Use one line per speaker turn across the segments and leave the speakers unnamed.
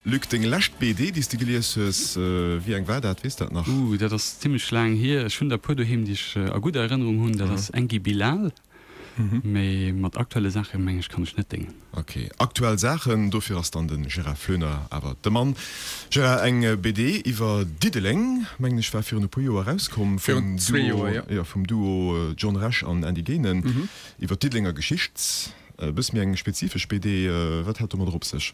Luc, deng lescht BD, déi s de gelies hues, wéi eng war dat? Weess dat nach?
Ooh, dat ass zimmlech laang hier. Ech hunn der e puer doheem, déi ech a gudder Erënnerung hunn. Dat ass Enki Bilal. Mee mat aktuelle Saache meng ech kann ech net déngen.
Ok, aktuell Saachen, dofir ass dann de Gérard Floener awer de Mann. Gérard, eng BD iwwer Diddeleng, mengen ech, war virun e puer Joer erauskomm vum Duo, jo, vum Duo John Rech an Andy Genen, iwwer d'Diddelenger Geschicht. E bësse méi eng spezifesch BD, wat hat domadder op sech?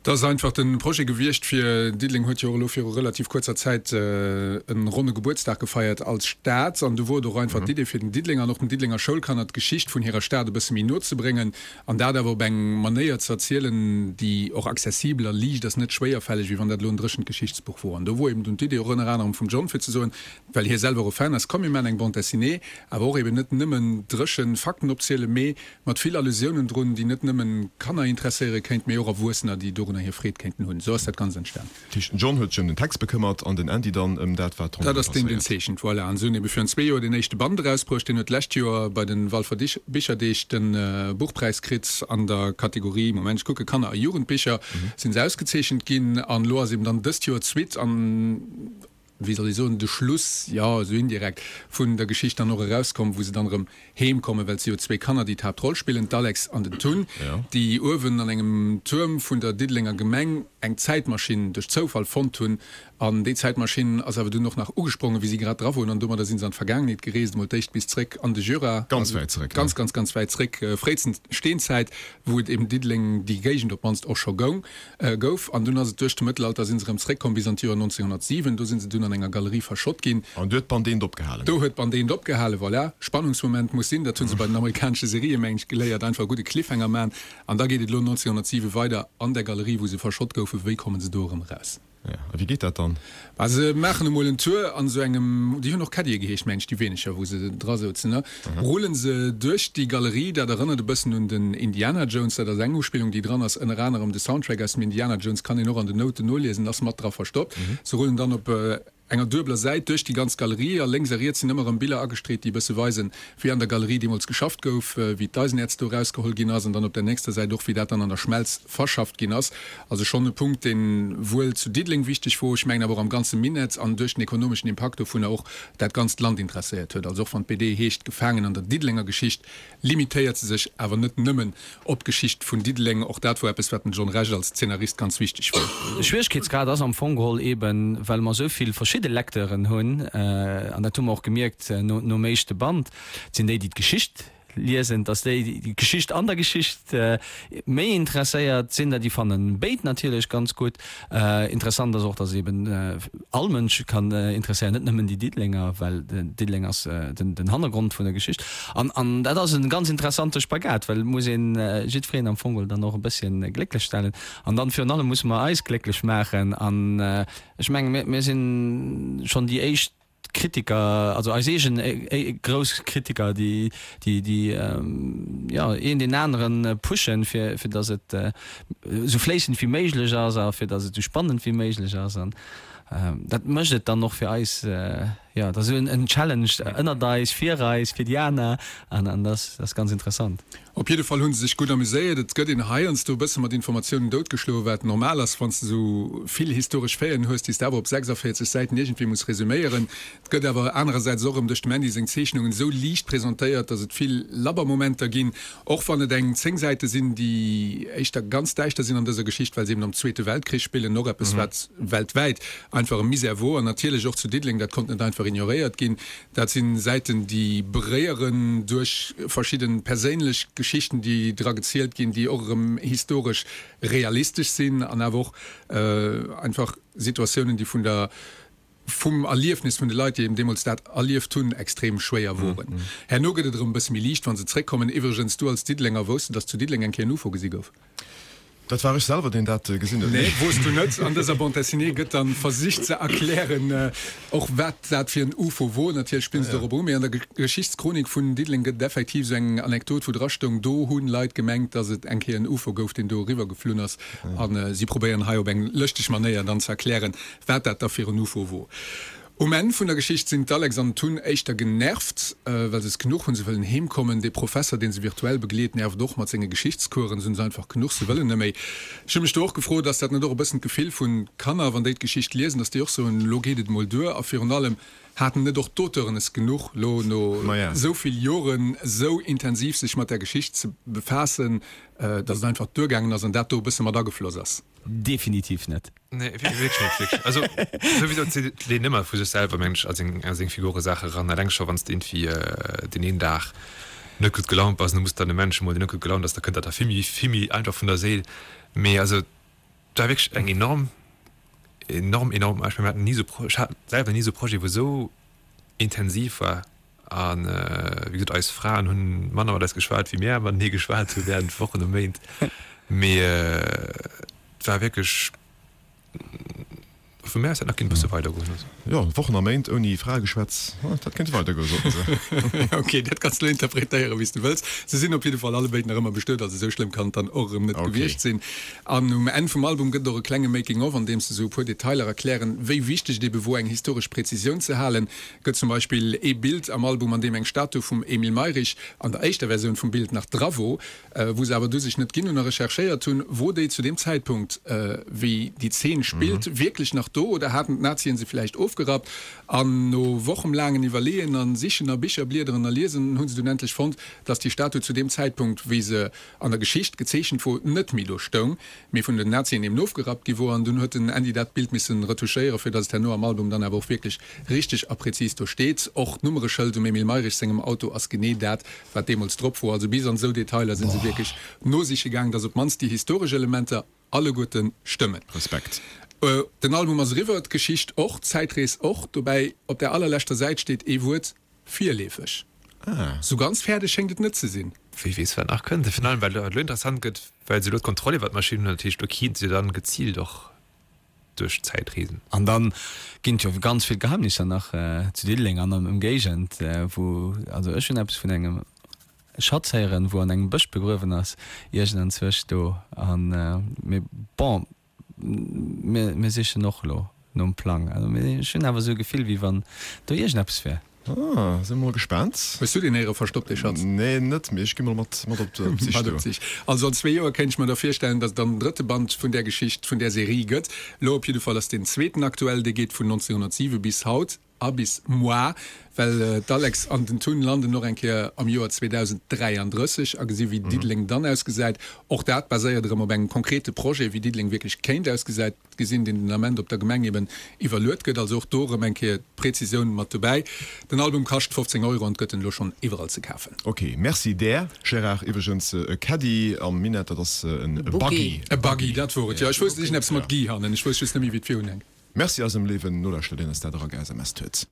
Dat ass einfach de Projet gewiescht fir, Diddeleng huet jo och elo viru relativ kuerzer Zäit e ronne Gebuertsdag gefeiert als Stad an do wor et och einfach d'Idee fir den Diddelenger an och den Diddelenger Schoulkanner d'Geschicht vun hirer Stad e bësse méi no ze bréngen an dat awer op eng Manéier ze erzielen, déi och accessibel a liicht ass, net schwéierfälleg, wéi wann dat elo en dréchent Geschichtsbuch wor. An do wor eben dunn d'Idee och ënner anerem vum John fir ze soen, well hie selwer och e Fan ass, komm mir maachen eng Bande dessinée, awer och eben net nëmmen dréchen Fakten opzielen, mee Mat vill Allusiounen drun, déi net nëmmen Kanner interesséiere kéint, mee och Erwuessener, déi dorunner hir Freed kéinten hunn. Esou ass dat Ganzt entstan.
Dat heescht, den John huet sech ëm den Text bekëmmert an den Andy dann ëm dat, wat
ronderëm passéiert. Dat ass deen, deen zeechent, voilà. An se hunn ebe virun zwee Joer deen éischte Band erausbruecht. Deen huet d'lescht Joer bei de Walfer Bicherdeeg de Buchpräis kritt an der Kategorie, Moment, ech kucken, Kanner a Jugendbicher sinn se ausgezeechent ginn. An elo ass eben dann dëst Joer d'Suite an. wéi soll ech soen, de Schluss, jo, esou indirekt, vun der Geschicht dann och erauskomm, wou se dann erëm heem kommen, well et si jo zwéi Kanner, déi d'Haaptroll spillen, d'Alex an den Tun, déi uewen an engem Tuerm vun der Diddelenger Gemeng eng Zäitmaschinn duerch Zoufall fonnt hunn. An déi Zäitmaschinn ass awer dunn och nach ugesprongen, wéi si grad dra woren, an domadder si se an d'Vergaangenheet gereest, emol d'éischt bis zréck an de Jura,
Ganz wäit zréck, ne?
Ganz, ganz, ganz wäit zréck, fréitstens Steenzäit, wou et eben Diddeleng, déi Géigend op d'mannst och scho goung. Gouf, an dunn ass et duerch de Mëttelalter sinn se erëm zréckkomm bis an d'Joer 1907. Do sinn se dunn an enger Galerie verschott ginn.
An do huet d'Band eent opgehalen.
Do huet d'Band eent opgehalen, voilà. Spannungsmoment muss sinn, dat hu se bei den amerikanesche Serië meng ech geléiert, einfach e gudde Cliffhanger man. An da geet et elo 1907 weider an der Galerie, wou se verschott goufen. Wéi kommen se do erëm eraus?
Jo, a wéi geet dat dann?
Bah, se maachen emol en Tour an esou engem, déi hunn och Caddie geheescht, meng ech, déi weeneger, wou se dra souzen, ne? Rullen se duerch déi Galerie, dat erënnert e bëssen un den Indiana Jones, dat ass eng Uspillung, déi dran ass, ënner anerem de Soundtrack aus dem Indiana Jones kann een och an den Nouten noliesen, ass mat dra verstoppt. Se rullen dann op enger duebeler Säit duerch déi ganz Galerie a lénks a riets sinn ëmmer erëm Biller agestreet, déi e bësse weisen, wéi an der Galerie deemools geschafft gouf, wéi d'Eisenäerz do erausgeholl ginn ass an dann op der nächster Säit och, wéi dat dann an der Schmelz verschafft ginn ass. Also schonn e Punkt, dee wuel zu Diddeleng wichteg wor, ech mengen awer och am ganze Minett an duerch den ekonomeschen Impakt dovunner och dat ganzt Land interesséiert huet. Also och wann d'BD heescht Gefaangen an der Diddelenger Geschicht, limitéiert se sech awer net nëmmen op d'Geschicht vun Diddeleng. Och dat wor eppes, wat dem John Rech als Zeenarist ganz wichteg wor.
De Schwieregkeetsgrad ass am Fong geholl eben, well mer esou vill verschidde Lecteuren hunn, an dat hu mer och gemierkt nom éischte Band, et sinn déi, déi d'Geschicht liesen, dass déi, déi d'Geschicht an der Geschicht méi interesséiert sinn, déi fannen béid natierlech ganz gutt. Interessant ass och, dass eben all Mënsch kann interesséieren, net nëmmen déi Diddelenger, well Diddeleng ass den Hannergrond vun der Geschicht. An an dat ass e ganz interessante Spagat, well et muss een jiddwereen am Fong dann och e bësschen glécklech stellen. An dann virun allem musse mer eis glécklech maachen. An ech mengen, mir mir sinn schonn déi éischt Kritiker, also eis eegen grouss Kritiker, déi déi déi jo een deen aneren pushen, fir fir datt et esou fléissend wéi méiglech ass a fir datt et esou spannend wéi méiglech ass. An dat mécht et dann och fir eis, jo, dat ass esou en Challenge ënnert eis, fir eis, fir déi aner an an dat ass ganz interessant.
Op jidde Fall hu se sech gutt amuséiert. Et gëtt een heiansdo e bësse mat Informatiounen doutgeschloen, wat normal ass, wann s de esou vill historesch Faiten hues, déi s de awer op 46 Säiten iergendwéi muss resuméieren. Et gëtt awer anerersäits och erëm duerch dem Andy seng Zeechnungen esou liicht presentéiert, datt et vill labber Momenter ginn, och wann et eng 10 Säite sinn, déi éischter ganz däischter sinn an dëser Geschicht, well se eben am Zweete Weltkrich spillen, och eppes, wat weltwäit einfach e Misär wor an natierlech och zu Diddeleng, dat konnt net einfach ignoréiert ginn. Dat sinn Säiten, déi beréieren duerch verschidden perséinlech Geschichten, déi dra gezielt ginn, déi och erëm historesch realistesch sinn an awer och einfach Situatiounen, déi vun der, vum Erliefnis vun de Leit, déi eben deemools dat erlieft hunn, extrem schwéier woren. Herno gëtt et erëm e bësse méi liicht, wa se zréckkommen. Iwwregens, du als Diddelenger, wousst de, datt zu Diddeleng eng Kéier en Ufo gesi gouf?
Dat war ech selwer, deen dat gesinn huet.
Nee, wo's du net. An dëser Bande dessinée gëtt dann versicht ze erklären, och wat dat fir en Ufo wor. Natierlech spillen se dorop u, mee an der Geschichtschronik vun Diddeleng gëtt et effektiv esou eng Anekdot, wou dra stoung, do hunn Leit gemengt, dass et eng Kéier en Ufo gouf, deen do eriwwer geflunn ass. A si probéieren hei op eng lëschteg Manéier dann ze erklären, wat dat da fir en Ufo wor. Um Enn vun der Geschicht sinn d'Alex an den Tun éischter genervt, well se es genuch hunn. Se wëllen heem kommen. Dee Professer, deen se virtuell begleet, nervt och mat senge Geschichtscoursen. Se hunn se einfach genuch, se wëllen net méi. Ech hu mech do och gefrot, ass dat net och e bëssen d'Gefill vun Kanner, wann déi d'Geschicht liesen, dass déi och soen, elo geet et emol duer? A virun allem, haten net och d'Auteuren es genuch, elo no esou vill Joren esou intensiv sech mat där Geschicht ze befaassen, dass et einfach duergaangen ass an dat do e bësse mat agefloss ass?
Definitiv net.
Nee, wierklech net, wierklech. Also souwisou zitt leen ëmmer vu sech selwer, mengen ech, a seng, a seng Figure Saache ran. Eleng scho wann s de iergendwéi deen een Dag net gutt gelaunt bass an du muss dann e Mensch emol, deen net gutt gelaunt ass, da kënnt dat der vill méi, vill méi einfach vun der Séil. Mee also et war wierklech eng enorm, enorm, enorm, ech mengen mir haten ni esou Pro, ech hat selwer ni esou Projet wou esou intensiv war. A wéi gesot, eis Fraen hunn manner mat eis geschwat, wéi mär matenee geschwat hu während Wochen a Méint. Mee et war wierklech, vu mär aus hätt nach kéint e bësse weidergoen. Also.
Jo, Wochen a Méint ouni Fraegeschwätz, dat kéint weidergoen, soten se.
Ok, dat kanns de elo interpretéieren, wéi s de wëlls. Se sinn op jidde Fall allebéid nach ëmmer bestuet, also esou schlëmm kann et dann och erëm net gewiescht sinn. An um Enn vum Album gëtt et och e klenge Making of, an deem se esou e puer Detailer erklären, wéi wichteg et ebe wor, eng historesch Präzisioun ze halen. Gëtt zum Beispill ee Bild am Album, an deem eng Statu vum Emile Mayrisch an der éischter Versioun vum Bild nach dra wor, wou se awer du sech net ginn hunn a recherchéiert hunn, wor déi zu deem Zäitpunkt, wéi déi Zeen spillt, wierklech nach do oder haten d'Nazien se villäicht ofgerappt? An no wochemlaangen Iwwerleeën a Sichen a Bicher bliederen a liesen, hu se dunn endlech fonnt, dass déi Statu zu deem Zäitpunkt, wéi se an der Geschicht gezeechent wor, net méi do stoung. Mee vun den Nazien eben ofgerappt gi wor, an dunn huet den Andy dat Bild missen retouchéieren, fir datt et herno am Album dann awer och wierklech richteg a präzis do steet. Och d'Nummereschëld um Emile Mayrisch sengem Auto ass genee dat, wat deemools drop wor. Also bis an esou Detailer si se wierklech nosiche gaang, datt op d'mannst déi historesch Elementer alleguerte stëmmen.
Respekt.
Den Album ass eriwwer, d'Geschicht och, d'Zäitrees och. Dobäi op der allerleschter Säit steet ee Wuert, Virleefeg.
Ah.
Sou ganz fäerdeg schéngt et net ze sinn.
Wie weess, wat nach kënnt. Virun allem, well et elo interessant gëtt, well se elo d'Kontroll iwwer d'Maschinn hunn. Dat heescht, elo kéinte se dann geziilt och duerch d'Zäit reesen.
An da ginn et jo ganz vill Geheimnisser nach zu Diddeleng an an Ëmgéigend, wou, also ech hunn eppes vun engem Schatz héieren, wou an engem Bësch begruewen ass, iergendanzwousch do. An, mee bon. Mir sichen och elo nom Plang. Also ech hunn awer esou e Gefill, wéi wann do iergendeppes wär.
Ah, si mol gespaant.
Hues du deen héiere verstoppt, dee Schatz?
Nee, net, mee ech gi mol mat mat op d'Sich
do. Also an zwee Joer kéint ech mer da virstellen, datt et dann den drëtte Band vun där Geschicht, vun där Serie gëtt. Elo op jidde Fall ass deen zweeten aktuell, dee geet vun 1907 bis haut. A bis moar, well d'Alex an den Tun landen och eng Kéier am Joer 2033 a gesi wéi Diddeleng dann ausgesäit. Och dat baséiert erëm op engem konkrete Projet, wéi Diddeleng wierklech kéint ausgesäit, gesinn, deen den Ament op der Gemeng eben iwwerluet gëtt. Also och do erëm eng Kéier d'Präzisioun mat dobäi. Den Album kascht 15 Euro an gëtt en elo schonn iwwerall ze kafen.
Ok, merci där, Gérard. Iwwregens, e Caddy am Minett, dat ass en Buggy.
E Buggy, dat wor et, jo. Ech wousst, et ass iergendeppes mat Guy hannen, ech wousst just net méi, wéi et virun hänkt.
Merci eisem léiwen Nolauschterer, deen eis dat era ge-SMS-t huet.